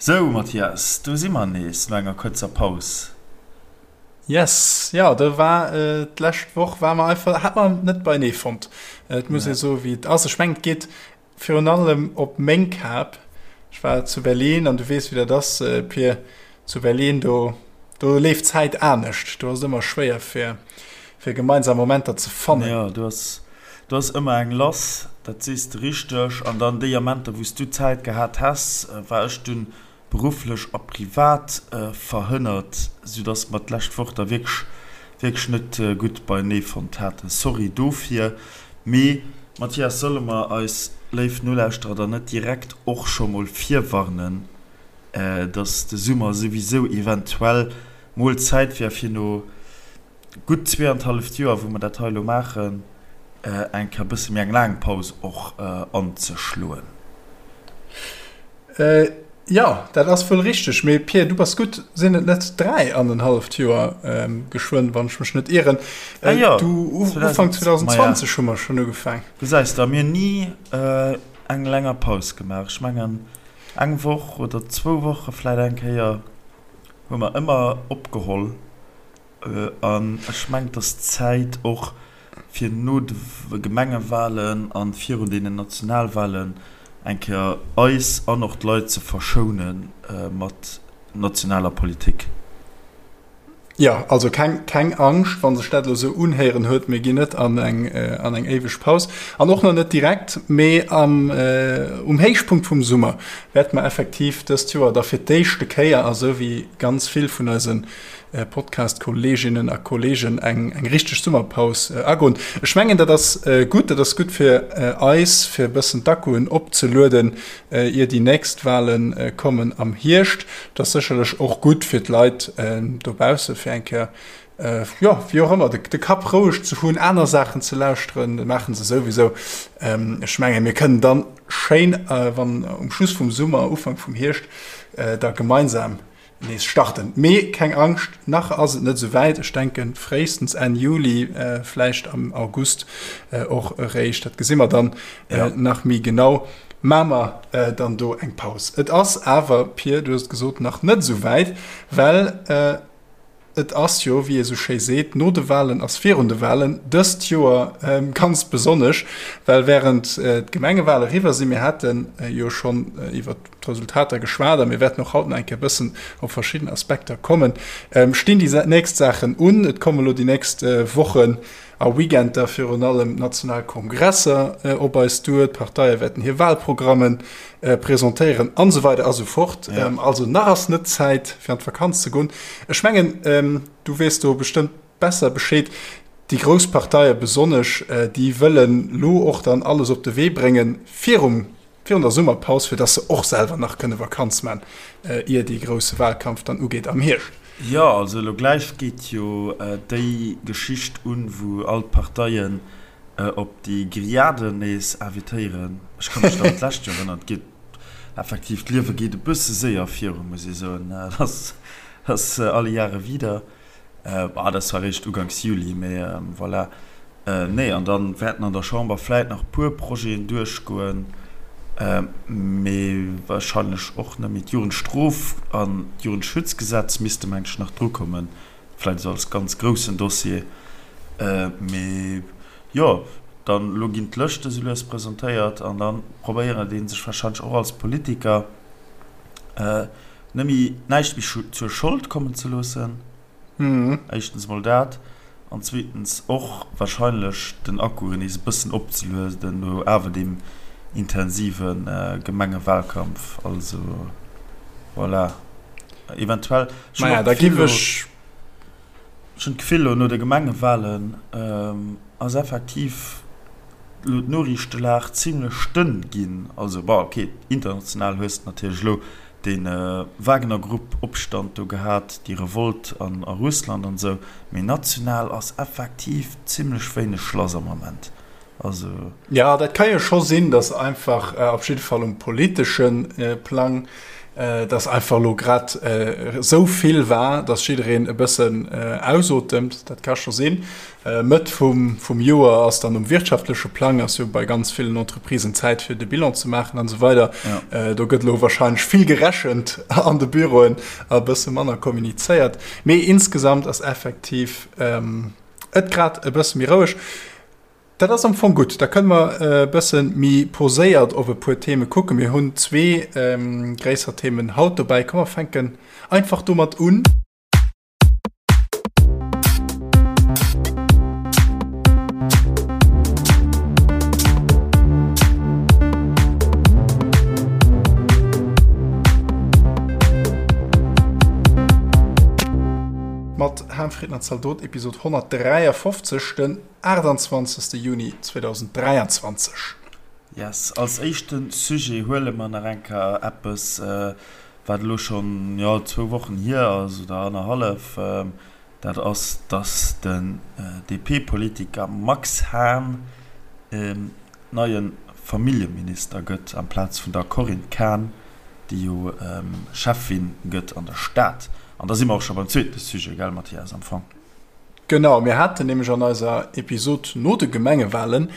Sou Mathias, do si mer nees no enger kuerzer Paus. Yes, jo do war d'lescht Woch war mer einfach, hat mer net beienee fonnt. Et muss ee soe wéi et ass. Ech mengen et geet virun allem op meng Kap. Ech war zu Berlin an du weess wéi dat ass Pir, zu Berlin do do leeft d'Zäit anescht. Do ass et ëmmer schwéier fir fir gemeinsam Momenter ze fannen. Jo, do ass do ass ëmmer eng lass, dat sees de richteg. An dann déi Amenter, wou s du Zäit gehat häss, war ech dunn berufflech a privat verhënnert, soudass mer d'lescht Woch da wierklech, wierklech net gutt beienee fonnt haten. Sorry dofir. Mee, Mathias, solle mer eis léif Nolauschterer dann net direkt och scho mol virwarnen, dass de Summer souwisou eventuell mol Zäit wär fir no gutt zweeanenhalleft Joer, wou mer dat hei elo maachen, eng Kéier e bësse méi eng laang Paus och anzeschloen. Jo, dat ass wuel richteg. Mee Pierre, du bass gutt, sinn et net dräianenhalleft Joer geschwënn, wann ech mech net ieren? Ah jo, du, Ufank 2020 hu mer schonn ugefaang. Gesäis de, a mir hunn ni eng länger Paus gemaach. Ech mengen, eng Woch oder zwou Woche vläit eng Kéier hu mer ëmmer opgeholl. An ech mengen, et ass Zäit och fir no de Gemengewahlen a virun deenen Nationalwahlen eng Kéier eis an och d'Leit ze verschoune mat nationaler Politik. Jo, also keng, keng Angscht, wa sech dat elo esou unhéieren huet, mir ginn net an eng, an eng éiweg Paus an och nach net direkt, mee am, um Héichpunkt vum Summer wäerte mer effektiv dëst Joer da fir d'éischte Kéier, a sou wéi ganz vill vun eise Podcast-Kolleeginnen a Kolleegen eng eng richteg Summerpaus agoen. Ech mengen, dat ass gutt. Dat ass gutt fir eis, fir e bëssen d'Akkuen opzelueden, ier déi nächst Wale kommen am Hierscht. Et ass sécherlech och gutt fir d'Leit dobausse fir eng Kéier, jo, wéi och ëmmer, de Kapp roueg ze hunn, aner Saachen ze lauschteren. Dat maache se souwisou. Ech mengen, mir kënnen dann schéin, wann um Schluss vum Summer, Ufank vum Hierscht, da gemeinsam nees starten. Mee keng Angscht, nach ass et net esou wäit. Ech denken fréistens Enn Juli, vläicht am August och eréischt, dat gesi mer dann nach méi genau, maache mer dann do eng Paus. Et ass awer, Pir, du hues et gesot, nach net esou wäit, well et ass jo, wéi ee sou schéi seet, no de Walen ass virun de Walen, dëst Joer ganz besonnesch, well wärend d'Gemengewale eriwwer sinn, mir hate jo schonn iwwert d'Resultater geschwat a mir wäerten och haut nach eng Kéier e bëssen op verschidden Aspekter kommen, stinn déi nächst Saachen un. Et komme lo déi nächst Wochen a Weekender virun allem national Kongresser op eis duer, d'Parteie wäerten hir Wahlprogramme presentéieren an esou weider a sou fort. Also nach ass net Zäit fir an d'Vakanz ze goen. Ech mengen, du weess do bestëmmt besser Bescheed, déi grouss Parteie besonnesch, déi wëllen lo och dann alles op de Wee bréngen virum virun der Summerpaus, fir dass se och selwer nach kënne Vakanz man, ier dee grousse Wahlkampf dann ugeet am Hierscht. Jo, also elo gläich geet jo déi Geschicht un, wou all d'Parteien op déi Grilladen nees invitéieren. Ech ka mech nach un d'lescht Joer erënneren. Et geet effektiv, d'Liewe geet e bësse séier virun, muss ee soen. Dat ass alle Jahre wieder. Bah, dat ass zwar eréischt uganks Juli, mee voilà. Nee, an da wäerten an der Chamber vläit nach e puer Projeten duerchgoen, mee warscheinlech och net méi. D'Jugendstrof an d'Jugendschutzgesetz misste meng ech nach drukommen, vläit esou als ganz groussen Dossier. Mee jo, dann elo ginn d'Lëschte sou lues presentéiert an da probéiert ee sech warscheinlech och als Politiker, Net méi, näischt méi zur Schold kommen ze loossen, éischtens emol dat, an zweetens och wahrscheinlech den Akku nees e bëssen opzelueden no awer deem intensive Gemengewahlkampf. Also voilà, eventuell, ech hunn och d'Gefill elo, ech hunn d'Gefill elo no de Gemengewahlen ass effektiv elo d'Noriichtelag zimlech dënn ginn. Also bon, ok, international hues de natierlech elo dee Wagner-Grupp-Opstand do gehat, déi Revolt a Russland an esou, mee national ass effektiv zimlech wéineg lass am Ament. Also. Jo, dat ka jo scho sinn, datt einfach op jidde Fall um politesche Plang. Dass einfach elo grad esou vill war, dass jiddereen e bëssen ausotemt, dat ka scho sinn. Mëtt vum Joer ass dann um wirtschaftleche Plang ass jo bei ganz villen Entreprisen Zäit fir de Bilan ze maachen an esou weider. Do gëtt elo wahrscheinlech vill gerechent an de Büroen a e bësse manner kommunizéiert. Mee insgesamt ass effektiv et grad e bësse méi roueg. Dat ass am Fong gutt. Da kënne mer e bësse méi poséiert op e puer Theme kucken. Mir hunn zwee gréisser Themen haut dobäi. Komm mer fänken einfach domat un. Mat Ham, Fritten an Zaldot, Episod 153, den 28. Juni 2023. Yes, als éischte Sujet huele mer nach eng Kéier eppes, wat elo schonn, jo, zwou Wochen hier ass oder annerhallef. Dat ass, dass den DP-Politiker Max Hahn neie Familljeminister gëtt amplaz vun der Corinne Cahen, déi jo Schäffin gëtt an der Stad. An da si mer och scho beim zweete Sujet, gell, Mathias, am Fong? Genau, mir haten nämlech an eiser Episod no de Gemengewalen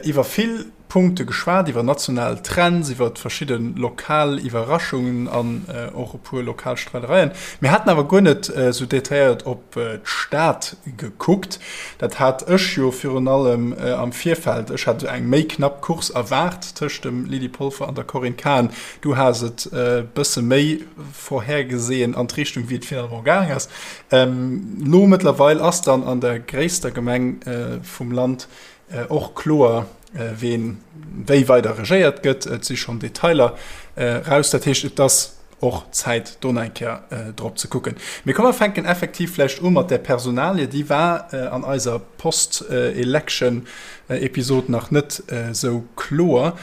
iwwer vill Punkte geschwat, iwwer national Trends, iwwer verschidde lokal Iwwerraschungen an och e puer lokal Streidereien. Mir haten awer guer net esou detailléiert op d'Stad gekuckt. Dat hat ech jo virun allem am Virfeld, ech hat eng méi knapp Course erwaart tëscht dem Lydie Polfer an der Corinne Cahen. Du has et e bësse méi vorhergesehen an d'Richtung, wéi et finalement gaang ass. Lo mëttlerweil ass dann an der gréisster Gemeng vum Land och kloer, ween wéi weider regéiert gëtt. Et si schonn Detailer raus. Dat heescht, et ass och Zäit, do nach eng Kéier drop ze kucken. Mee komm mer fänken effektiv vläicht u mat där Personalie. Déi war an eiser Post-Election-Episod nach net esou kloer.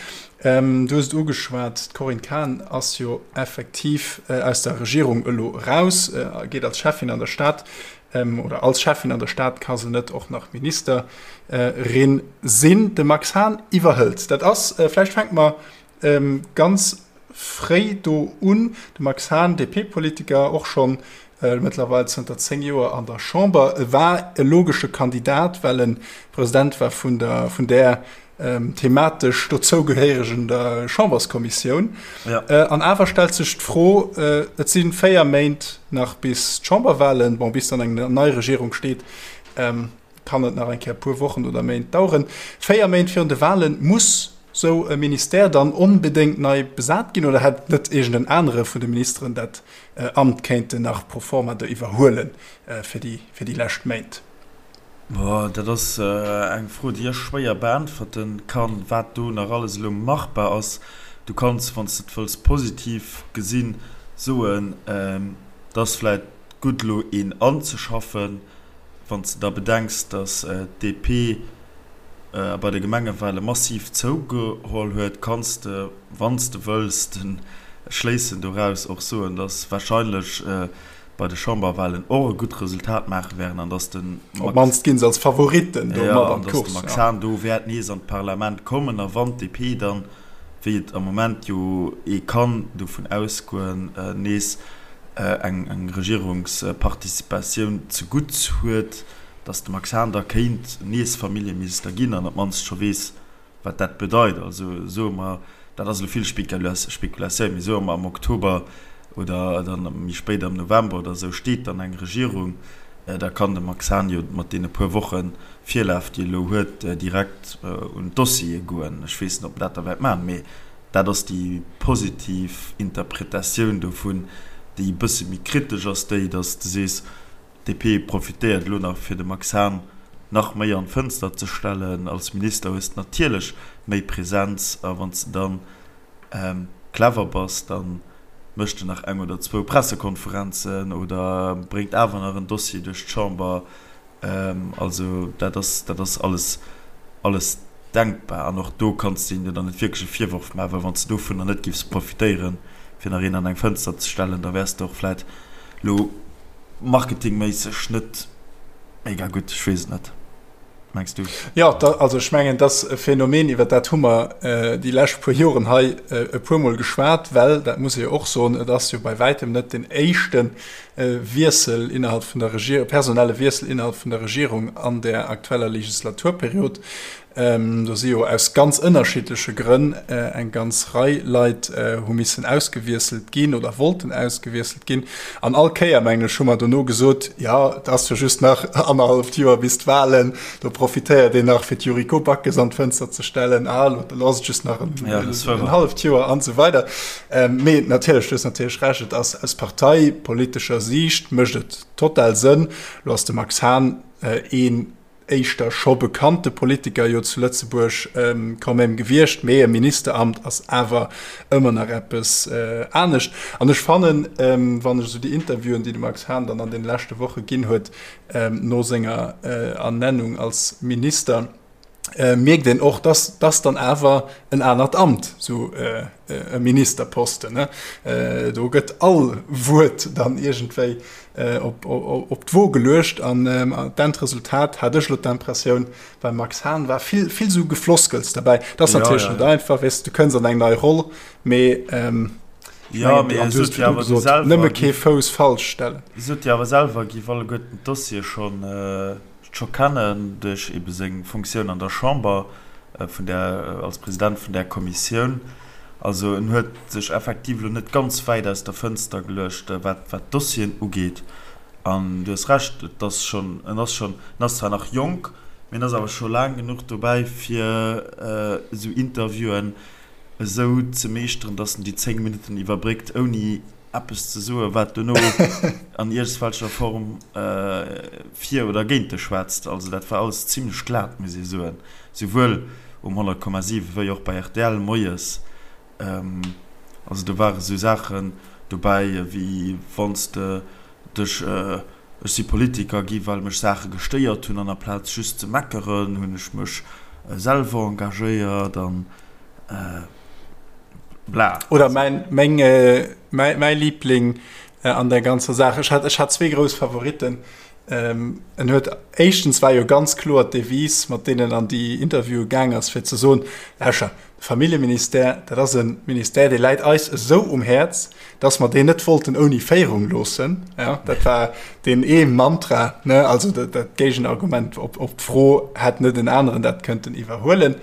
Du hues et ugeschwat, d'Corinne Cahen ass jo effektiv aus der Regierung elo eraus, geet als Schäffin an der Stad, oder als Schäffin an der Stad ka se net och nach Ministerin sinn. De Max Hahn iwwerhëlt. Dat ass, vläicht fänke mer ganz fréi do un, de Max Hahn, DP-Politiker, och schonn mëttlerweil zënter 10 Joer an der Chamber, e war e logesche Kandidat, well e President war vun der, vun där thematesch dozougehéieregen der Chamberskommissioun. Ja. An awer stellt sech d'Fro, et si 4 Méint nach bis d'Chamberwahlen, bon, bis dann eng nei Regierung steet, kann et nach eng Kéier e puer Wochen oder Méint daueren. 4 Méint virun de Wahlen, muss sou e Ministère dann onbedéngt nei besat ginn oder hätt net iergend en anere vun de Ministeren dat Amt kéinten nach pro forma do iwwerhuelen fir déi, fir déi lescht Méint? Boah, dat ass eng Fro, déi ech schwéier beäntwerten kann, wat do nach alles elo machbar ass. Du kanns, wann s de et wëlls positiv gesinn, soen, et ass vläicht gutt elo een anzeschaffen, wann s de da bedenks, datt d'DP bei de Gemengewale massiv zougeholl huet, kanns de, wann s de wëlls, de Schléissen doraus och soen, datt wahrscheinlech bei de Chamberwahlen och e gutt Resultat maache wären an dass de Max, Op d'mannst ginn se als Favoritten do mat an d'Course, ja. Max Hahn do wäert nees an d'Parlament kommen a wann d'DP dann, wéi et am Moment jo ee kann dovun ausgoen, nees eng Regierungsparticipatioun zegutt huet, dass de Max Hahn da kéint nees Familljeminister ginn an op d'mannst scho weess, wat dat bedeit. Also soe mer, dat ass elo vill Spekulatioun, mee soe mer am Oktober oder dann méi spéit am November oder esou steet dann eng Regierung, da kann de Max Hahn jo mat deene puer Woche Virlaf, déi e elo huet, direkt un d'Dossiere goen. Ech weess net, ob en dat da wäert maachen, mee dat ass déi positiv Interpretatioun dovun. Déi e bësse méi kritesch ass déi, datt s de sees, DP profitéiert elo nach fir de Max Hahn nach méi an d'Fënster ze stellen. Als Minister hues de natierlech méi Präsenz a wann s de dann clever bass, da méchs de nach eng oder zwou Pressekonferenzen oder bréngt awer nach en Dossier duerch d'Chamber. Also dat ass, dat ass alles, alles denkbar an och do kanns de hinne dann net wierklech e Virworf maachen, well wann s de dovunner net giffs profitéieren, fir nach een an eng Fënster ze stellen, da wäers de och vläit elo marketingméisseg net mega gutt, ech weess et net. Mengs du? Jo, da, also ech mengen, et ass e Phänomen, iwwer dat hu mer déi lescht puer Joren hei e puermol geschwat, well, dat muss ee jo och soen, et ass jo bei wäitem net deen éischte Wiessel innerhalb vun der Regierung, personelle Wiessel innerhalb vun der Regierung an där aktueller Legislaturperiod. Do si jo aus ganz ënnerschiddleche Grënn eng ganz Rei Leit hu missen ausgewiesselt ginn oder wollten ausgewiesselt ginn. An all Kéier, mengen ech, hu mer dono gesot, jo, et ass jo just nach annerhalleft Joer bis d'Wahlen, do profitéiert een nach, fir d'Yuriko Backes an d'Fënster ze stellen, ah, elo ass et just nach en halleft Joer an esou weider. Mee natierlech, du hues natierlech Recht, et ass aus parteipolitescher Siicht mécht et total Sënn. Elo ass de Max Hahn een éischter scho bekannte Politiker jo zu Lëtzebuerg quand même gewiescht, mee e Ministeramt ass awer ëmmer nach eppes anescht. An ech fannen, wann ech esou déi Interviewen, déi de Max Hahn dann an deene leschte Woche ginn huet, no senger Ernennung als Minister, mierkt een och, dass dass dann awer en anert Amt, esou e Ministerposten, do gëtt all Wuert dann iergendwéi op d'Wo geluecht an d'Endresultat, hat ech elo d'Impressioun, beim Max Hahn war vill, vill esou Gefloskels derbäi. Dat ass natierlech net einfach, weess de, du kënns an eng nei Roll, mee ech mengen, an du hues virdru gesot, nëmme kee Fouss falsch stellen. Sot jo awer selwer, giff alleguerten d'Dossiere schonn scho kennen duerch ebe seng Funktioun an der Chamber vun där, als President vun där Kommissioun. Also en huet sech effektiv elo net ganz wäit aus der Fënster geluecht, wat wat d'Dossieren ugeet. An du hues Recht, et ass schonn, en ass schonn, en ass zwar nach jonk, mee en ass awer scho laang genuch dobäi fir esou Interviewen esou ze meeschteren, datt en déi 10 Minutten iwwerbréckt ouni eppes ze soen, wat dono an iergswelcher Form fir oder géint dech schwätzt. Also dat war alles zimlech glat, muss ee soen, souwuel um 100,7 wéi och bei rtl moies. Also do ware sou Saachen dobäi wéi wann s de dech, ech si Politiker gi well mech Saache gestéiert hunn an aplaz just ze meckeren, hunn ech mech selwer engagéiert an. Bla. Oder mäin, meng, mäi, mäi Liebling an der ganzer Saach. Ech hat, ech hat zwee grouss Favoritten. Ähm, en huet éischtens war jo ganz kloer d'Devise, mat deenen an déi Interviewe gaang ass, fir ze soen, Lauscher, de Familljeministère, dat ass e Ministère, dee läit eis esou um Häerz, dass mer deen net wollten ouni Féierung loossen. Ja, dat war deen ee Mantra, ne, also dat, dat Géigenargument op, op d'Fro, hätt net en aneren dat kënnten iwwerhuelen.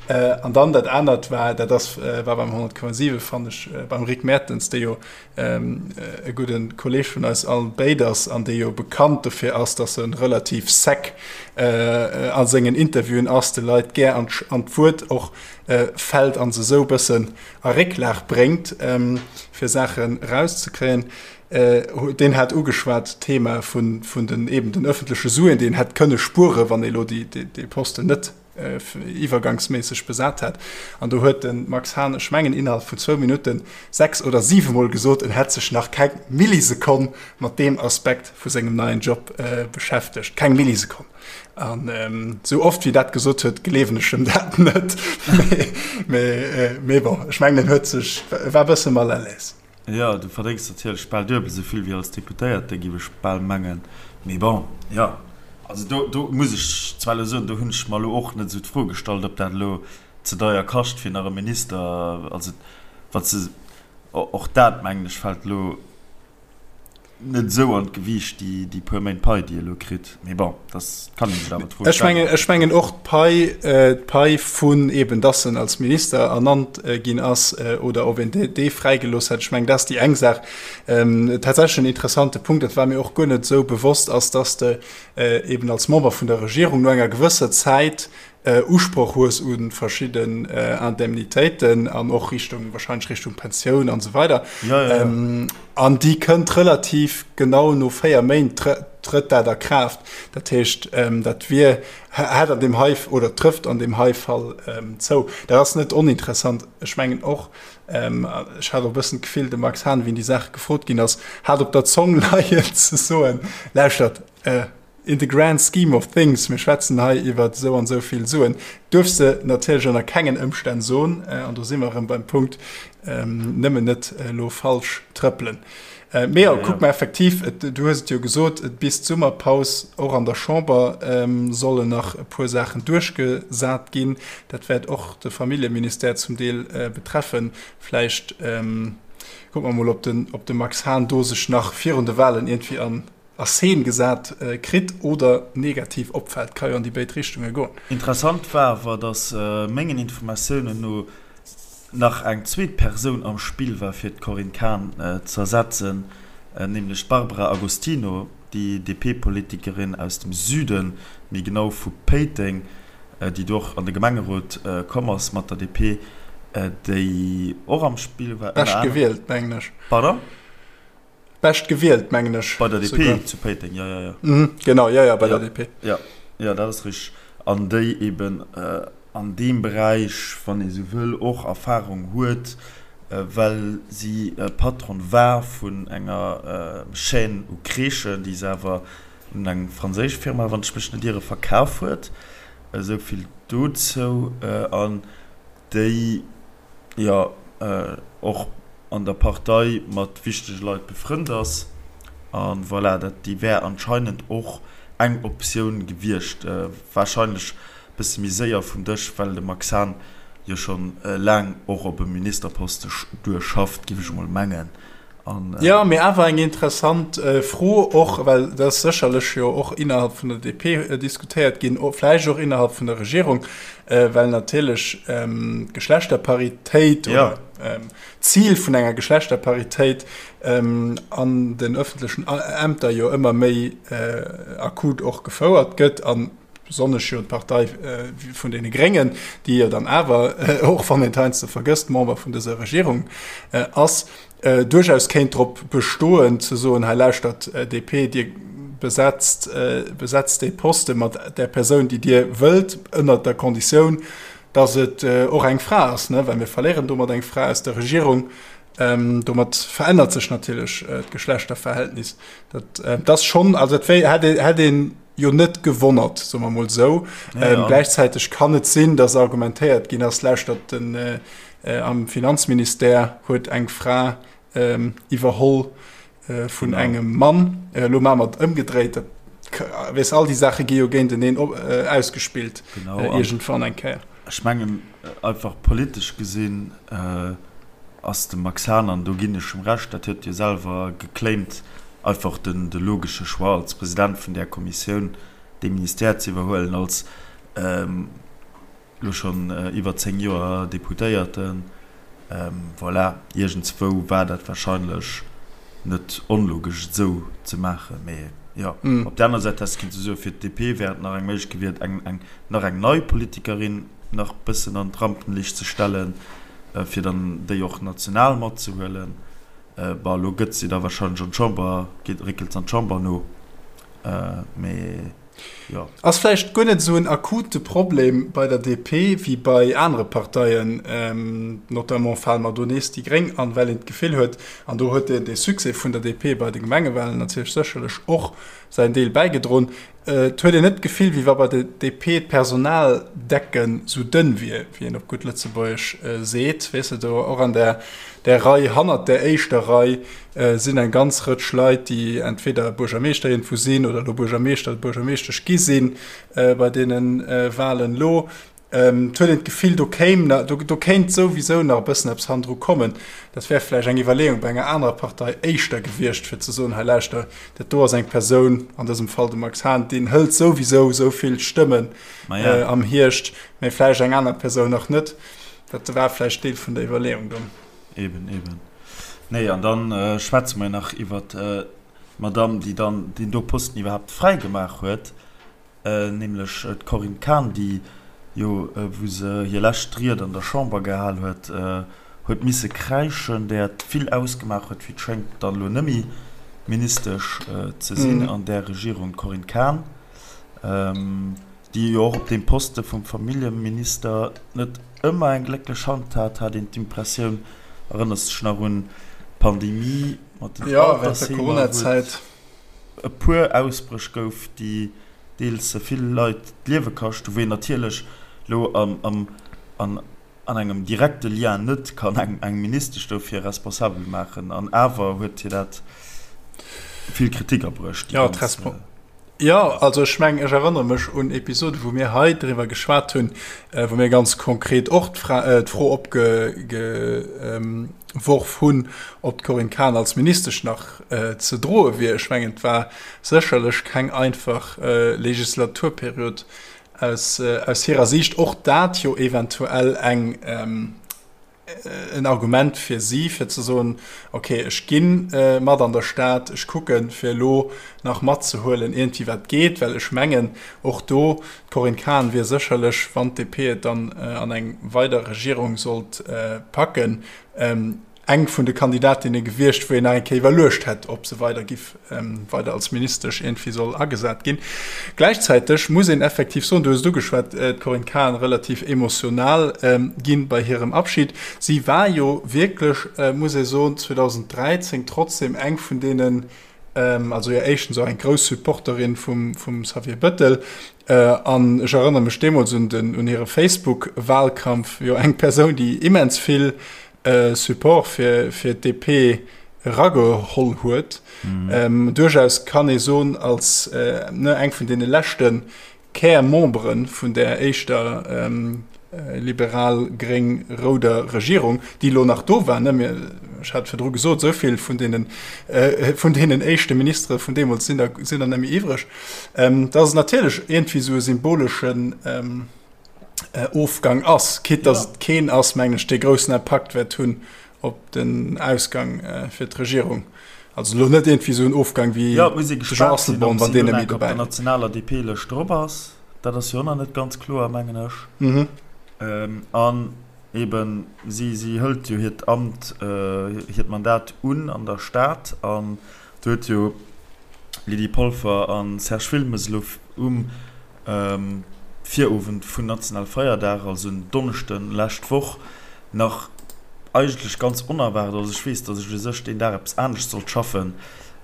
An dann dat anert war, dat ass, war beim 100,7 fannen ech, beim Rick Mertens, dee jo e gudde Kolleeg vun eis all béid ass an dee jo bekannt dofir ass, datt e relativ sec a sengen Interviewen ass, de Leit gär an d'Wuert och fält a se esou e bëssen a Récklag bréngt, fir Saachen erauszekréien. Deen hat ugeschwat d'Thema vun den eben den ëffentleche Suen, déi een hätt kënne spueren, wann ee elo dee Posten net iwwergangsméisseg besat hat. An do huet de Max Hahn, ech mengen innerhalb vun zwou Minutten, sechs oder siwemol gesot, en hätt sech nach keng Millisekonn mat deem Aspekt vu sengem neien Job beschäftegt. Keng Millisekonn! An esou oft wéi dat gesot huet, gleewen ech em dat net. Mee bon, ech mengen, en huet sech, e war e bësse mal à l'aise. Jo, du verdéngs natierlech bal duebel esou vill wéi als Deputéierte, giff ech bal mengen. Mee bon, jo, also do, do muss ech zwar elo soen, do hunn ech mer elo och net esou d'Fro gestallt, ob dat elo ze deier kascht fir nach e Minister, also wat se, och dat mengen ech fält elo net esou an d'Gewiicht, déi, déi puer Méint Pai, déi e lo kritt. Mee bon, dat kann ee sech awer d'Fro stellen. Ech mengen, ech mengen och d'Pai, d'Pai vun eben, dass en als Minister ernannt ginn ass oder ob een dee, dee fräigelooss hätt, ech mengen, dat ass déi eng Saach. Tatsächlech en interessante Punkt, dat war mir och guer net esou bewosst, ass, dass de eben als Member vun der Regierung no enger gewësser Zäit Usproch hues u verschidden Indemnitéiten an och Richtung, wahrscheinlech Richtung Pensioun an esou weider. Ja, ja, ja. An déi kënnt relativ genau no 4 Méint trëtt dat a Kraaft. Dat heescht, dat wier, hätt an deem hei oder trëfft an deem hei Fall zou. Dat ass net oninteressant. Ech mengen och, ech hat och e bëssen d'Gefill, de Max Hahn, wéi en déi Saach gefrot ginn ass, hat op der Zong leien ze soen, Lauschtert, In the grand scheme of things, mir schwätzen hei iwwer esou an esou vill Suen, duerfs de natierlech ënner kengen Ëmstänn soen, an do si mer erëm beim Punkt, nëmmen net elo falsch trëppelen. Mee jo, kuck mer effektiv, et, du hues et jo gesot, et bis d'Summerpaus och an der Chamber sollen nach e puer Saachen duerchgesat ginn. Dat wäert och de Familljeministère zum Deel betreffen. Vläicht kucke mer mol, ob den, ob de Max Hahn do sech nach virun de Wahlen iergendwéi an a Scene gesat kritt oder negativ opfält. Ka jo an déi béid Richtunge goen. Interessant war awer, datt mengen Informatiounen no nach eng zweet Persoun am Spill war fir d'Corinne Cahen z'ersetzen, nämlech d'Barbara Agostino, déi DP-Politikerin aus dem Süden, méi genau vu Péiteng, déi do och an de Gemengerot komm ass mat der DP, déi och am Spill war. Bescht gewielt, mengen ech. Pardon? Bescht gewielt, mengen ech. Bei der DP zu Péiteng, jo, jo, jo. Mhm, genau, jo, jo, bei der DP. Jo, jo, dat ass richteg. An déi eben an deem Beräich, wann ee sou wëll, och Erfahrung huet, well si Patronne war vun enger Chaîne u Crèchen, déi se awer un eng franséisch Firma, wann ech mech net iere, verkaf huet. Esou vill dozou. An déi jo och an der Partei mat wichtege Leit befrënnt ass. A voilà, dat déi wär anscheinend och eng Optioun gewiescht. Warscheinlech e bësse méi séier vum Dësch, well de Max Hahn jo scho laang och op e Ministerposte duerschafft, géif ech emol mengen. An, äh, Jo, mee awer eng interessant Fro och, well dat ass sécherlech jo och innerhalb vun der DP diskutéiert ginn, vläicht och innerhalb vun der Regierung, well natierlech d'Geschlechterparitéit oder d'Zil vun enger Geschlechterparitéit an den öffentlechen Ämter jo ëmmer méi akut och gefouert gëtt. An besonnesch jo d'Partei vun deene Gréngen, déi jo dann awer, och wann een et heiansdo vergësst, Member vun dëser Regierung ass, duerchaus kéint drop bestoen ze soen, hei lauschtert DP, Dir besetzt, besetzt dee Poste mat där Persoun, déi Dir wëllt, ënnert der Konditioun, datt et och eng Fra ass, well mir verléieren domat eng Fra aus der Regierung. Domat verännert sech natierlech d'Geschlechterverhältnis. Dat ass schonn, also dat wär, hätt een jo net gewonnert, soe mer mol esou. Ja, ja. Gläichzäiteg kann et sinn, datt argumentéiert ginn ass, lauschtert, den, äh, am Finanzministère huet eng Fra ähm, iwwerholl äh, vun genau. engem Mann. Äh, lo maache mer et ëmgedréit. Dat, weess, all déi Saache gi jo géinteneen op, äh, ausgespillt. Genau. Äh, iergendwann eng Kéier. Ech mengen, einfach politesch gesinn, äh, ass de Max Hahn, an do ginn ech em Recht, dat huet jo selwer geclaimt, einfach den de logesche Choix als President vun där Kommissioun dee Ministère ze iwwerhuelen, als elo schonn iwwer 10 Joer Deputéierten. Voilà, iergendswou war dat wahrscheinlech net onlogesch et esou ze maachen. Mee jo, op där aner Säit häss de kinnte soen, fir d'DP wär et nach eng Méiglechkeet gewiert, eng eng nach eng nei Politikerin nach bëssen an d'Rampenlicht ze stellen, fir dann déi och national matzehuelen. Bon, elo gëtt si da wahrscheinlech an d'Chamber, geet, réckelt se an d'Chamber no, mee jo. Ass vläicht guer net esou en akute Problem bei der DP wéi bei anere Parteien, notamment fale mer do nees déi Gréng an, well een d'Gefill huet, an do huet dee Succès vun der DP bei de Gemengewahlen natierlech sécherlech och säin Deel bäigedroen, Et huet een net d'Gefill, wéi wa bei der DP d'Personaldecken sou dënn wier, wéi een op gutt Lëtzebuergesch seet. Weess de, do och an där där Rei, hannert där éischter Rei sinn eng ganz Rëtsch Leit, déi entweder Buergermeeschter iergendwou sinn oder elo Buergermeeschter oder Buergermeeschtesch gi si bei deene Wahlen elo. Et huet een d'Gefill, do kéim, do kéint souwisou nach e bëssen eppes hannendru kommen. Dat wär vläicht eng Iwwerleeung bei enger anerer Partei éischter gewiescht, fir ze soen, hei lauschter, dat do ass eng Persoun, an dësem Fall de Max Hahn, deen hëlt souwisou esou vill Stëmmen am Hierscht, mä vläicht eng aner Persoun nach net. Dat war vläicht Deel vun der Iwwerleeung do. Eben, eben. Nee, an da schwätze mer nach iwwer d'Madamm, déi dann deen do Posten iwwerhaapt fräigemaach huet. Nämlech d'Corinne Cahen, déi jo, wou se hir lescht Ried an der Chamber gehal huet, huet misse kräischen, där et vill ausgemaach huet, wéi et schéngt, dann elo net méi Ministesch ze sinn an där Regierung. D'Corinne Cahen, déi jo och op deem Poste vum Familljeminister net ëmmer eng glécklech Hand hat, hat een d'Impressioun. Erënners dech nach un d'Pandemie mat den Altersheemer, wou et. e puer Ausbréch gouf, déi deels vill Leit d'Liewe kascht hu, wou een natierlech elo an, an, an. an engem direkte Lien net kann eng eng Ministesch dofir responsabel maachen. An awer huet hir dat vill Kritik abruecht, déi Ja, ganz. d'Respon Jo, also ech mengen, ech erënnere mech un Episode wou mir hei driwwer geschwat hunn, wou mir ganz konkret och d'Fro opgeworf hunn, ob d'Corinne Cahen als Ministesch nach ze droe wier. Ech mengen, et war sécherlech keng einfach Legislaturperiod aus hirer Siicht. Och dat jo eventuell eng en Argument fir si, fir ze soen, ok, ech gi mat an der Stad, ech kucken, fir elo nach matzehuelen iergendwéi wat geet. Well ech mengen, och do, d'Corinne Cahen wier sécherlech, wann d'DP et dann an eng weider Regierung sollt packen, eng vun de Kandidatinne gewiescht, wou een nach eng Kéier iwwerluecht hätt, ob se weider giff weider als Ministesch iergendwéi soll agesat ginn. Gläichzäiteg muss een effektiv soen, du hues et ugeschwat, d'Corinne Cahen relativ emotional ginn bei hirem Abschied. Si war jo wierklech, muss ee soen, 2013 trotzdem eng vun deenen, also jo éischtens och eng grouss Supporterin vum Xavier Bettel, an ech erënnere mech deemools un den, un hire Facebook-Wahlkampf, jo eng Persoun, déi immens vill Support fir fir d'DP erageholl huet. Mm. Duerchaus kann ee soen, als ne, eng vun deene leschte Kärmembere vun der éischter ähm, liberal-gréng-rouder Regierung, déi elo nach do war, ne, mir, ech hat virdru gesot, esou vill vun deenen, äh, vun deenen éischte Ministere vun deemools sinn der, sinn der net méi iwwreg, ähm, dass et natierlech iergendwéi esou e symboleschen, ähm, Ofgang ass, quitte dass et keen ass, mengen ech, dee groussen Impakt wäert hunn op den Ausgang fir d'Regierung. Also elo net iergendwéi esou en Ofgang wéi de Jean Asselborn, wann deen net méi dobäi ass. Op der nationaler DP-Lëscht drop ass, dat ass jo och nach net ganz kloer, mengen ech. An eben, si hëlt jo hiert Amt, hiert Mandat un an der Stad an do huet jo Lydie Polfer a Serge Wilmes elo um Virowend vun nationale Feierdag, also en Donneschden lescht Woch, nach eigentlech ganz onerwaart, also ech weess, datt ech u sech deen Dag eppes anescht sollt schaffen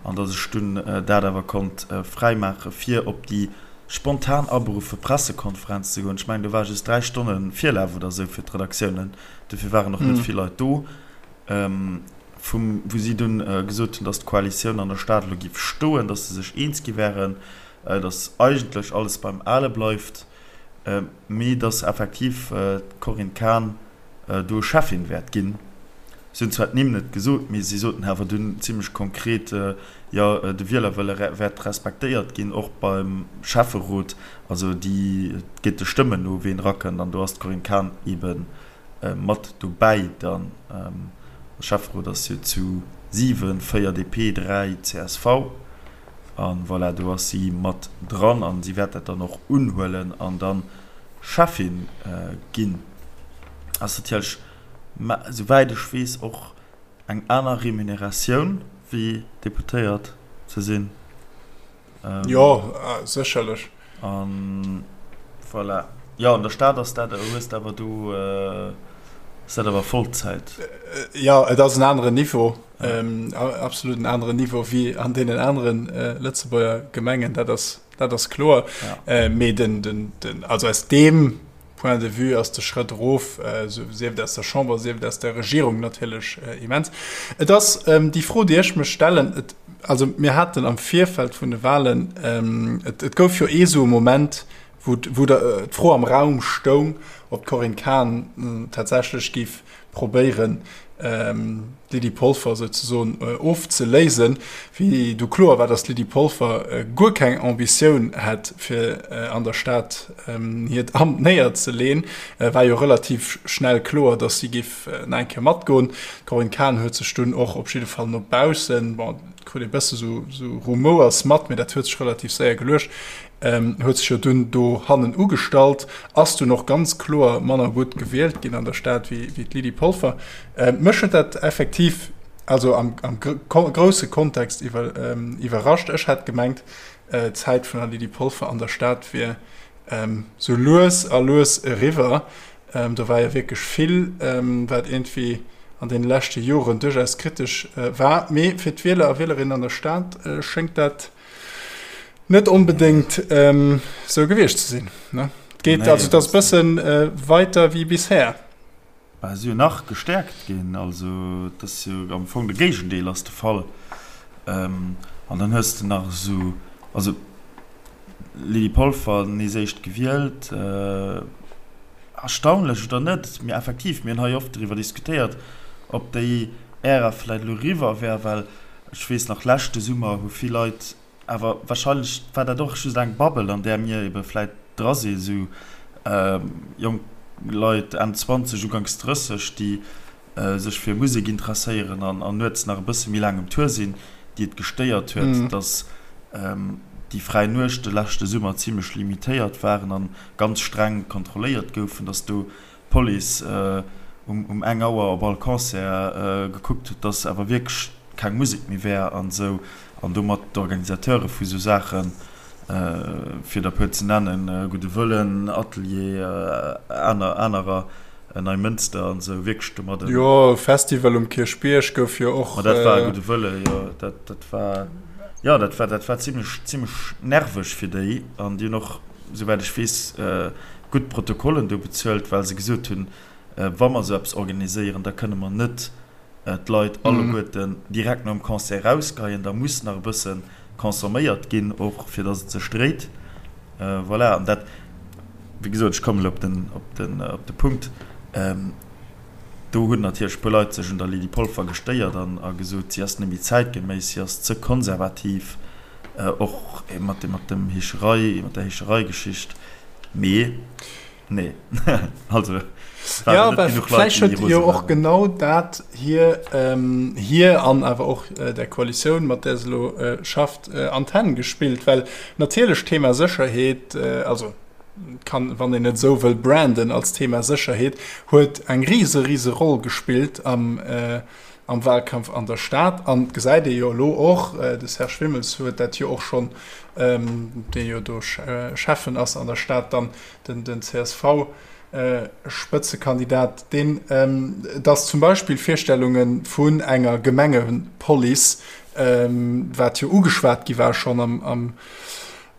an datt ech dunn dat awer konnt fräi maache fir op déi spontan aberuffe Pressekonferenz ze goen. Ech mengen do war just 3 Stonne Virlaf oder esou fir d'Redaktiounen, dofir waren och net vill Leit do, vum wou si dunn gesot hunn, datt d'Koalitioun an der Stad elo géif stoen, datt se sech eens gi wären. dass eigentlech alles beim Ale bleift, mee dass effektiv d'Corinne Cahen do Cheffin wäert ginn. Si hunn zwar d'Nimm net gesot, mee si soten awer dunn zimmlech konkret, jo, de Wielerwëlle wäert respektéiert ginn, och beim Schäfferot. Also déi, et geet de Stëmmen no, ween erakënnt, an do ass d'Corinne Cahen eebe mat dobäi dann. De Schäfferot ass jo zu 7, 4 DP, 3 csv. A voilà, do ass si mat dran a si wäert dat dann och unhuelen an da Schäffin ginn. Ass natierlech, souwäit ech weess, och eng aner Remuneratioun wéi Deputéiert ze sinn. Jo, sécherlech. A voilà. Jo, an der Stad ass dat, hues de awer do, ass dat awer Vollzäit. Jo, et ass en aneren Niveau. Absolut en aneren Niveau wéi an deenen aneren Lëtzebuerger Gemengen, dat ass, dat ass kloer. Mee den, den, den, also aus deem Point de vue ass de Schrëtt erof, sief et aus der Chamber, sief et aus der Regierung, natierlech immens. Et ass déi Fro, déi ech mech stellen, et, also mir haten am Virfeld vun de Wahlen, et, et gouf jo ee sou e Moment, wou, wou d'Fro am Raum stoung, ob d'Corinne Cahen tatsächlech géif probéieren, d'Lydie Polfer souzesoen ofzeléisen. Wéi du kloer war, datt d'Lydie Polfer guer keng Ambitioun hätt, fir an der Stad hiert Amt néierzeleen, war jo relativ schnell kloer, datt si géif nach eng Kéier matgoen. D'Corinne Cahen huet sech dunn och op jidde Fall no baussen, bon, et krut ee bësse sou Rumouers mat, mee dat huet sech relativ séier geluecht, huet sech jo dunn do hannen ugestallt, ass dunn och ganz kloer manner gutt gewielt ginn an der Stad wéi d'Lydie Polfer. Mech huet dat effektiv, also am grousse Kontext iwwerrascht. Ech hat gemengt, d'Zäit vun der Lydie Polfer an der Stad wier sou lues a lues eriwwer. Do war jo wierklech vill, wat iergendwéi an deene leschte Joren duerchaus kritesch war. Mee fir d'Wieler a Wielerinnen an der Stad schéngt dat Net onbedéngt sou gewiescht ze sinn. Ne? Et geet, also et ass e bësse weiter wéi bisher. Bah, si jo nach gestäerkt ginn. Also et ass jo am Fong de Géigendeel ass de Fall. An dann hues de nach esou, also Lydie Polfer nees éischt gewielt, erstaunlech oder net, mee effektiv, mir hunn hei oft driwwer diskutéiert, ob déi Ära vläicht elo eriwwer wär, well ech weess nach, leschte Summer hu vill Leit, awer wahrscheinlech war dat och just eng Bubble, an där mir ebe vläicht dra sinn, esou jonk Leit Enn 20, Uganks 30, déi sech fir Musek interesséieren an nuets nach e bësse méi laang um Tour sinn, déi et gestéiert huet, dass déi fräi Nuechte leschte Summer zimlech limitéiert waren an ganz streng kontrolléiert goufen, dass do d'Police um eng Auer op all Concert gekuckt huet, dass awer wierklech keng Musek méi wär an esou, an domat d'Organisateure vu sou Saachen, fir der e puer ze nennen, Gudde Wëllen, Atelier, aner, anerer, Neimënster an esou, wierklech domat en. Jo, Festival um Kierchbierg gouf jo och. Ma dat war Gudde Wëlle, jo, dat, dat war, jo, dat war, dat war zimlech, zimlech nerveg fir déi an déi hunn och, souwäit ech weess, gutt Protokollen do bezuelt, well se gesot hunn, wa mer esou eppes organiséieren, da kënne mer net d'Leit alleguerten direkt nom Concert erausgeheien, da muss nach e bësse consomméiert ginn, och fir datt et sech dréit. Voilà, an dat, wéi gesot, ech kommen elo op den, op den, op de Punkt, do hunn natierlech e puer Leit sech un der Lydie Polfer gestéiert an a gesot, si ass net méi zäitgeméiss, si ass ze konservativ, och mat dem, mat dem Heescherei, mat der Heeschereigeschicht. Mee. Nee, also ja, vläicht huet jo och genau dat hir ähm, hir an awer och äh, der Koalitioun, mat där se lo äh, schafft, äh, an d'Hänn gespillt, well natierlech Thema Sécherheet, äh, also kann, wann een et esou wëll branden als Thema Sécherheet, huet eng rise rise Roll gespillt am äh, am Wahlkampf an der Stad. An et gesäit ee jo elo och, de Serge Wimmels huet dat jo och schonn, dee jo do Schäffen ass an der Stad, dann den CSV-Spëtzekandidat, deen, datt zum Beispill Virstellunge vun enger Gemengepolice, wat jo ugeschwat gi war schonn am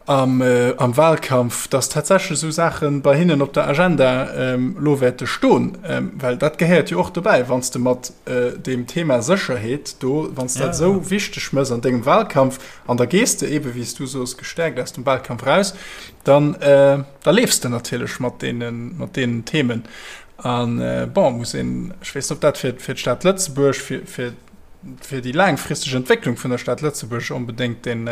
am Wahlkampf, dass tatsächlech esou Saache bei hinnen op der Agenda elo wäerte stoen, well dat gehéiert jo och dobäi, wann s de mat deem Thema Sécherheet do, wann s dat esou wichteg méchs an dengem Wahlkampf an da gees de eebe wéi s du soos gestäerkt aus dem Wahlkampf raus, dann da leefs de natierlech mat deenen, mat deenen Themen. A bon, muss een, ech weess net, ob dat fir d'Stad Lëtzebuerg, fir, fir, fir déi laangfristeg Entwécklung vun der Stad Lëtzebuerg onbedéngt deen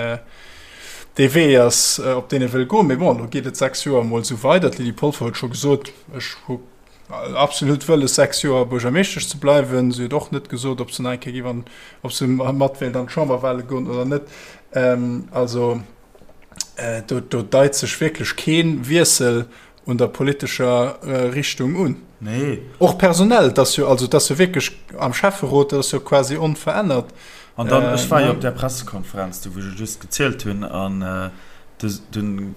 dee Wee ass, op deen e wëll goen. Mee bon, elo geet et 6 Joer emol esou weider. D'Lydie Polfer huet scho gesot, ech hu absolut wëlles, 6 Joer Buergermeeschtesch ze bleiwen. Si huet och net gesot, ob se nach eng Kéier géif an, ob se mat wéilt an d'Chamberwale goen oder net. Also do, do deit sech wierklech kee Wiessel un der politescher Richtung un. Nee. Och personell, et ass jo, also et ass jo wierklech am Schäfferot, dat ass jo quasi onverännert. An dann, ech war jo op där Pressekonferenz do, wou ech et just gezielt hunn, an dunn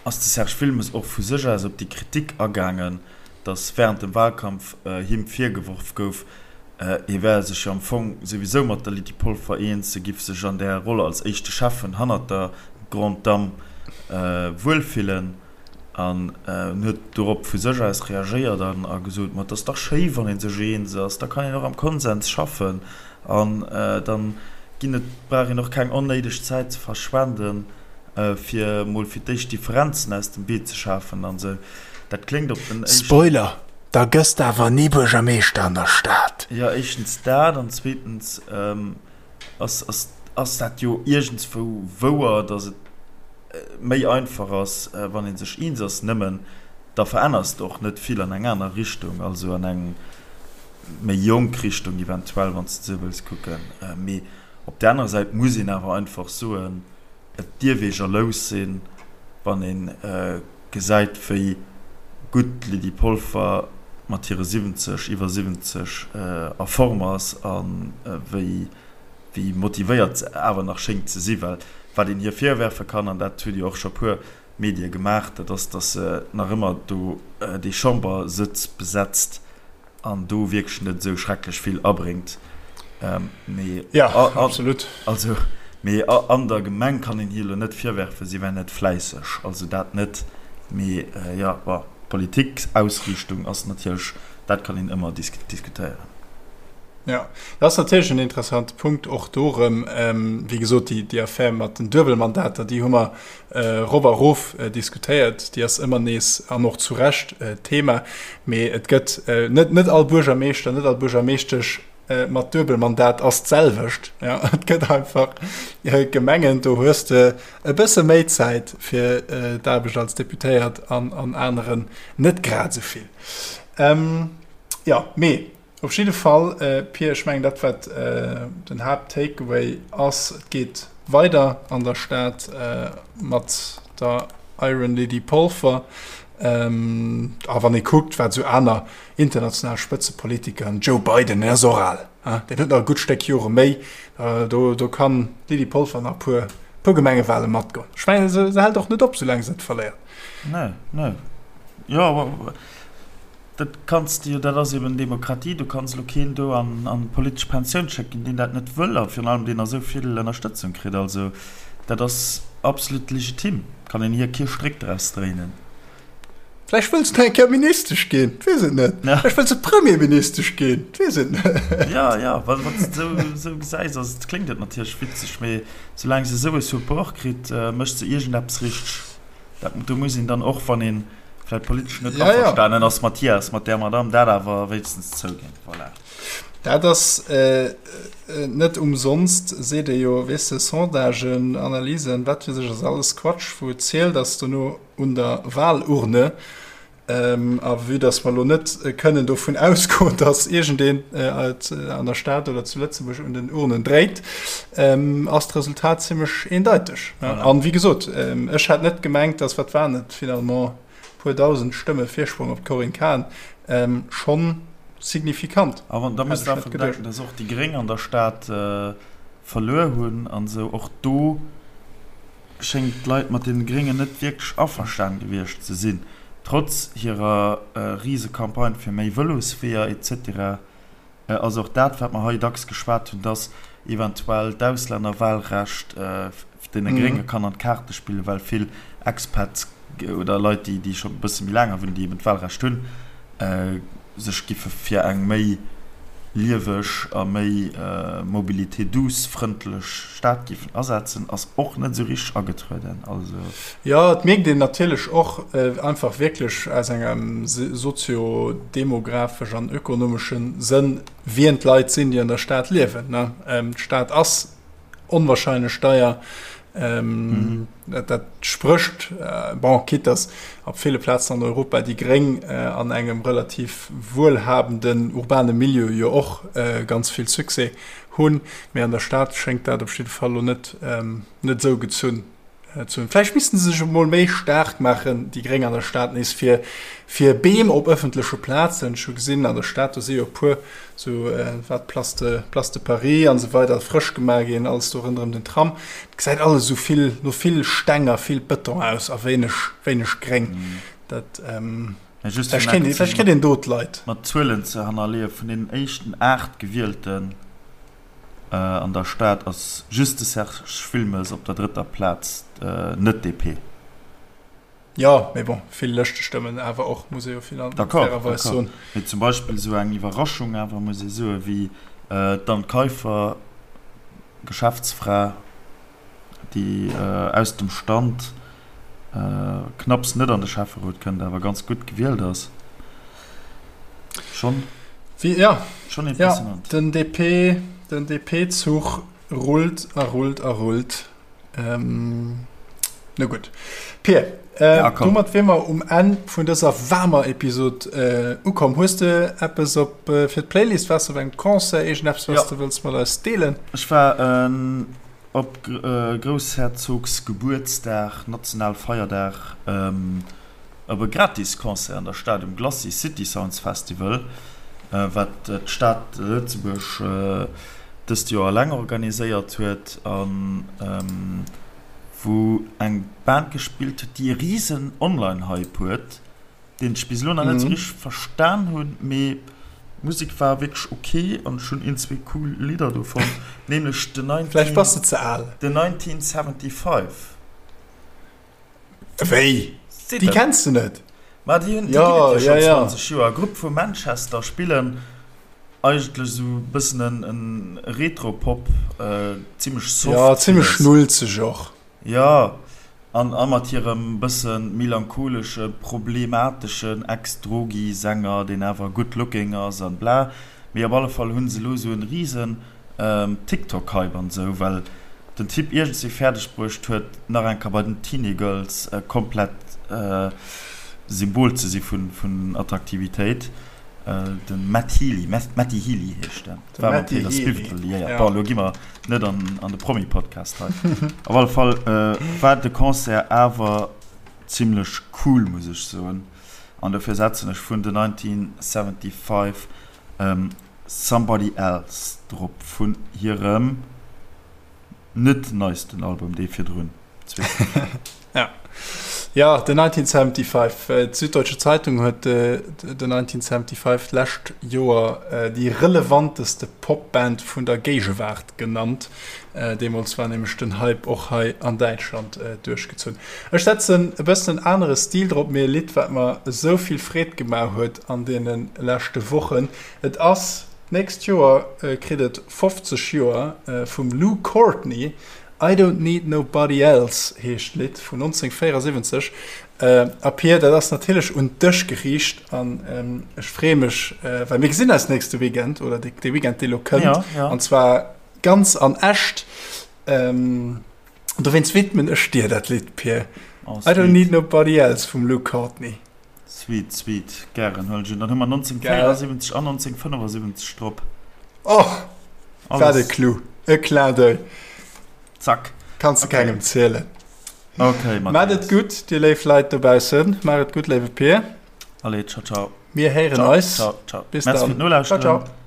ass de Serge Wilmes och vu sech aus op déi Kritik agaangen, datt während dem Wahlkampf him virgeworf gouf, hie wär sech jo am Fong souwisou mat der Lydie Polfer eens, e giff sech an där Roll als éischte Schäffen hannert der Grande Dame wuelfillen. An en huet dorop vu sech aus reagéiert an a gesot, Ma et ass dach schéi, wann ee sech eens ass, da kann een och am Konsens schaffen an dann ginn et, brauch een och keng onnéideg Zäit ze verschwenden, fir emol fir d'éischt Differenzen aus dem Wee ze schafen an esou. Dat kléngt op den éischten. Spoiler, Da gëss de awer ni Buergermeeschter an der Stad. Jo, éischtens dat an zweetens ass, ass, ass dat jo iergendswou wouer, datt et méi einfach ass, wann ee sech eens ass. Nëmmen da veränners de och net vill an eng aner Richtung, also an eng méi jonk Richtung eventuell, wann s de esou wëlls kucken. Mee op där anerer Säit muss een awer einfach soen, et dierf ee jalous sinn, wann ee gesäit, wéi gutt d'Lydie Polfer mat hire 70, iwwer 70 a Form ass a wéi wéi motivéiert se awer nach schéngt ze sinn. Well wat een hir virwerfe kann, an dat huet jo och scho puer Medie gemaach, dat ass, datt se nach ëmmer do dee Chambersëtz besetzt an do wierklech net esou schrecklech vill abréngt. Mee ja, absolut. Also, mee an der Gemeng kann een hir elo net virwerfen, si wär net fläisseg. Also dat net. Mee jo, bon, d'Politikausriichtung ass natierlech. Dat kann een ëmmer diskutéieren. Jo, dat ass natierlech en interessante Punkt och do erëm. Wéi gesot, déi Affär mat den Duebelmandater, déi hu mer erop a erof diskutéiert. Déi ass ëmmer nees, an och zu Recht, Thema. Mee et gëtt net, net all Buergermeeschter, net all Buergermeeschtesch mat Duebelmandat ass d'selwecht. Et gëtt einfach Gemengen, do hues de e bësse méi Zäit fir d'Aarbecht als Deputéiert an an aneren net grad esou vill. Jo, mee op jidde Fall, Pir, ech mengen dat wat den Haapt-Takeaway ass, et geet weider an der Stad mat der Iron Lady Polfer. A wann ee kuckt, wat esou aner international Spëtzepolitiker, den Joe Biden, deen ass och al, deen huet nach e gutt Stéck Jore méi, do kann d'Lydie Polfer nach e puer, puer Gemengewale matgoen. Ech mengen, se hält och net op, soulaang se net verléiert. Nee, nee. Jo, dat kanns de jo, dat ass eben Demokratie, du kanns elo keen do an an d'politesch Pensioun schécken, deen dat net wëll a virun allem deen esou vill Ënnerstëtzung kritt. Also dat ass absolut legitim, kann een hir kee Stréck draus dréinen. Vläicht wëll se nach eng Kéier Ministesch ginn, weess et net. Vläicht wëll se Premierministesch ginn, weess et net. Jo, jo, wa s de esou esou gesäis, ass et, kléngt et natierlech witzeg, mee soulaang se esou e Support kritt, mécht se iergendeppes richteg. Dat, do muss een dann och, wann ee vläicht politesch net averstanen ass mat hir, ass mat där Madamm, dat awer wéinstens zouginn. Voilà. Dat ass net umsonst, seet ee jo, weess de, Sondagen, Analysen, wat weess ech, ass alles Quatsch. Wou et zielt, ass dono un der Wahlurne. A vue dass mer elo net kënnen dovun ausgoen, dass iergendeen an der Stad oder zu Lëtzebuerg un den Urnen dréit, ass d'Resultat zimmlech eendeiteg. An wéi gesot, ech hätt net gemengt, dass, wat waren et finalement, e puer dausend Stëmme Virsprong op d'Corinne Cahen, schonn signifikant. An da muss de einfach bedenken, dass och déi Gréng an der Stad verluer hunn an esou. Och do schéngt d'Leit mat deene Gréngen net wierklech averstanen gewiescht ze sinn, trotz hirer Risecampagne fir méi Vëlosweeër etc. Ass och dat, wat mer hei dacks geschwat hunn, dass eventuell d'Auslännerwahlrecht deene Grénge kann an d'Kaarte spillen, well vill Expats oder Leit, déi scho e bësse méi laang hei wunnen, déi eben d'Wahlrecht hunn, sech giffe fir eng méi lieweg a méi Mobilité douce frëndlech Stad giffen asetzen, ass och net esou richteg agetrueden. Also. Jo, et mierkt een natierlech och einfach wierklech aus engem sozio-demografesch an ökonomesche Sënn, wien d'Leit sinn, déi an der Stad liewen. D'Stad ass onwahrscheinlech deier. Ähm, dat, dat sprécht, äh, bon, quitte dass op ville Plazen an Europa déi Gréng äh, an engem relativ wuelhabenden urbane Milieu jo och äh, ganz vill Succès hunn, mee an der Stad schéngt dat op jidde Fall lo net, ähm, net esou gezunn. Ze hunn. Vläicht missten se sech emol méi staark maachen, déi Gréng an der Stad nees, fir fir Beem op ëffentleche Plazen. Ech hu gesinn, an der Stad, do si jo e puer esou, wat, Place de, Place de Paris an esou weider, frësch gemaach ginn, alles do ronderëm den Tram. Et gesäit alles esou vill no vill Steng a vill Bëton aus a wéineg, wéineg Gréng. Dat, vläicht kéint, vläicht kritt een do d'Leit. Mat Zuelen ze hannerleeën, vun deenen éischten 8 Gewielten An der Stad ass just de Serge Wilmes op der drëtter Plaz, net DP. Jo, mee bon, vill Lëschtestëmmen awer och, muss ee jo fairerweis soen. Mee zum Beispill esou eng Iwwerraschung awer, muss ee soen, wéi d'Anne Kaiffer, Geschäftsfra, déi aus dem Stand knapps net an de Schäfferot kënnt, awer ganz gutt gewielt ass. Schonn, ja, schonn impressionant. Ja, den DP, den DP-Zuch rullt a rullt a rullt. Ähm, na gutt. Pir, äh, ja, domat wier mer um Enn vun dëser waarmer Episod äh, ukomm. Hues de eppes op äh, fir d'Playlist? Waars de op engem Concert? Iergendeppes, was ja. de wëlls mat eis deelen? Ech war äh, Op Groussherzogsgebuertsdag, Nationalfeierdag, op e gratis Concert an der Stad um Glacis City Sounds Festival, wat d'Stad Lëtzebuerg dëst Joer eleng organiséiert huet a wou eng Band gespillt huet, déi e risen Online-Hype huet. deen ech bis elo nach net sou richteg verstan hunn, mee d'Musek war wierklech ok an ech hunn een, zwee cool Lidder do fonnt, nämlech The Vläicht bass de ze al. The 1975. Wéi? Déi kenns de net? Ma déi hunn, déi ginn et jo schonn 20 Joer. Grupp vu Manchester, spillen eigentlech esou e bëssen en Retro-Pop, zimmlech soft. Jo, zimmlech schnulzeg och. Jo, an a mat hirem bësse melancholesche, problemateschen Ex-Drogi-Sänger, deen awer good looking ass an bla. Mee op alle Fall hunn se elo esou en risen TikTok-Hype an esou, well den Typ iergendswéi fäerdeg bruecht huet, nach eng Kéier bei den Teenie-Girls komplett Symbol ze si vun Attraktivitéit. De Matt Healy, Matty Healy heescht en. De War mat Taylor Swift liéiert. Bon, elo gi mer net an de Promi-Podcast hei. Op alle Fall war de Concert awer zimmlech cool, muss ech soen. An dofir setzen ech vun The 1975 Somebody Else drop vun hirem net neisten Album, dee virdrun. Ja. Ja, The 1975. D'Süddeutsche Zeitung huet The 1975 d'lescht Joer déi relevanteste Popband vun der Géigewaart genannt. Deemools war nämlech den Hype och hei an Däitschland duerchgezunn. Ech setzen e bëssen en anere Stil drop, mee e Lidd, wat mer esou vill Freed gemaach huet an deene leschte Wochen. Et ass, d'nächst Joer kritt et 50 Joer, vum Lou Courtney, I Don't Need Nobody Else heescht d'Lidd vun 1974. A Pir, dat ass natierlech un dech geriicht an ech freeë mech, well mir gesinn eis nächste Weekend oder dee Weekend, dee lo kënnt, an zwar ganz an echt. Dowéinst widmen ech dir dat Lidd, Pir. I Don't Need Nobody Else vum Lou Courtney. Sweet, sweet. Gären huelen ech un. Dann hu mer 1974 an 1975 drop. Oh, wat e Clou. E Clin d'oeil. Zack. Kanns de kengem zielen. Okay, Maat et Mathias. gutt, dir léif Leit dobaussen. Maach et gutt, léiwe Pir. Allez, ciao, ciao. Mir héieren Ciao, eis. ciao, ciao. Bis Merci dann. fir d'Nolauschteren. Ciao, ciao.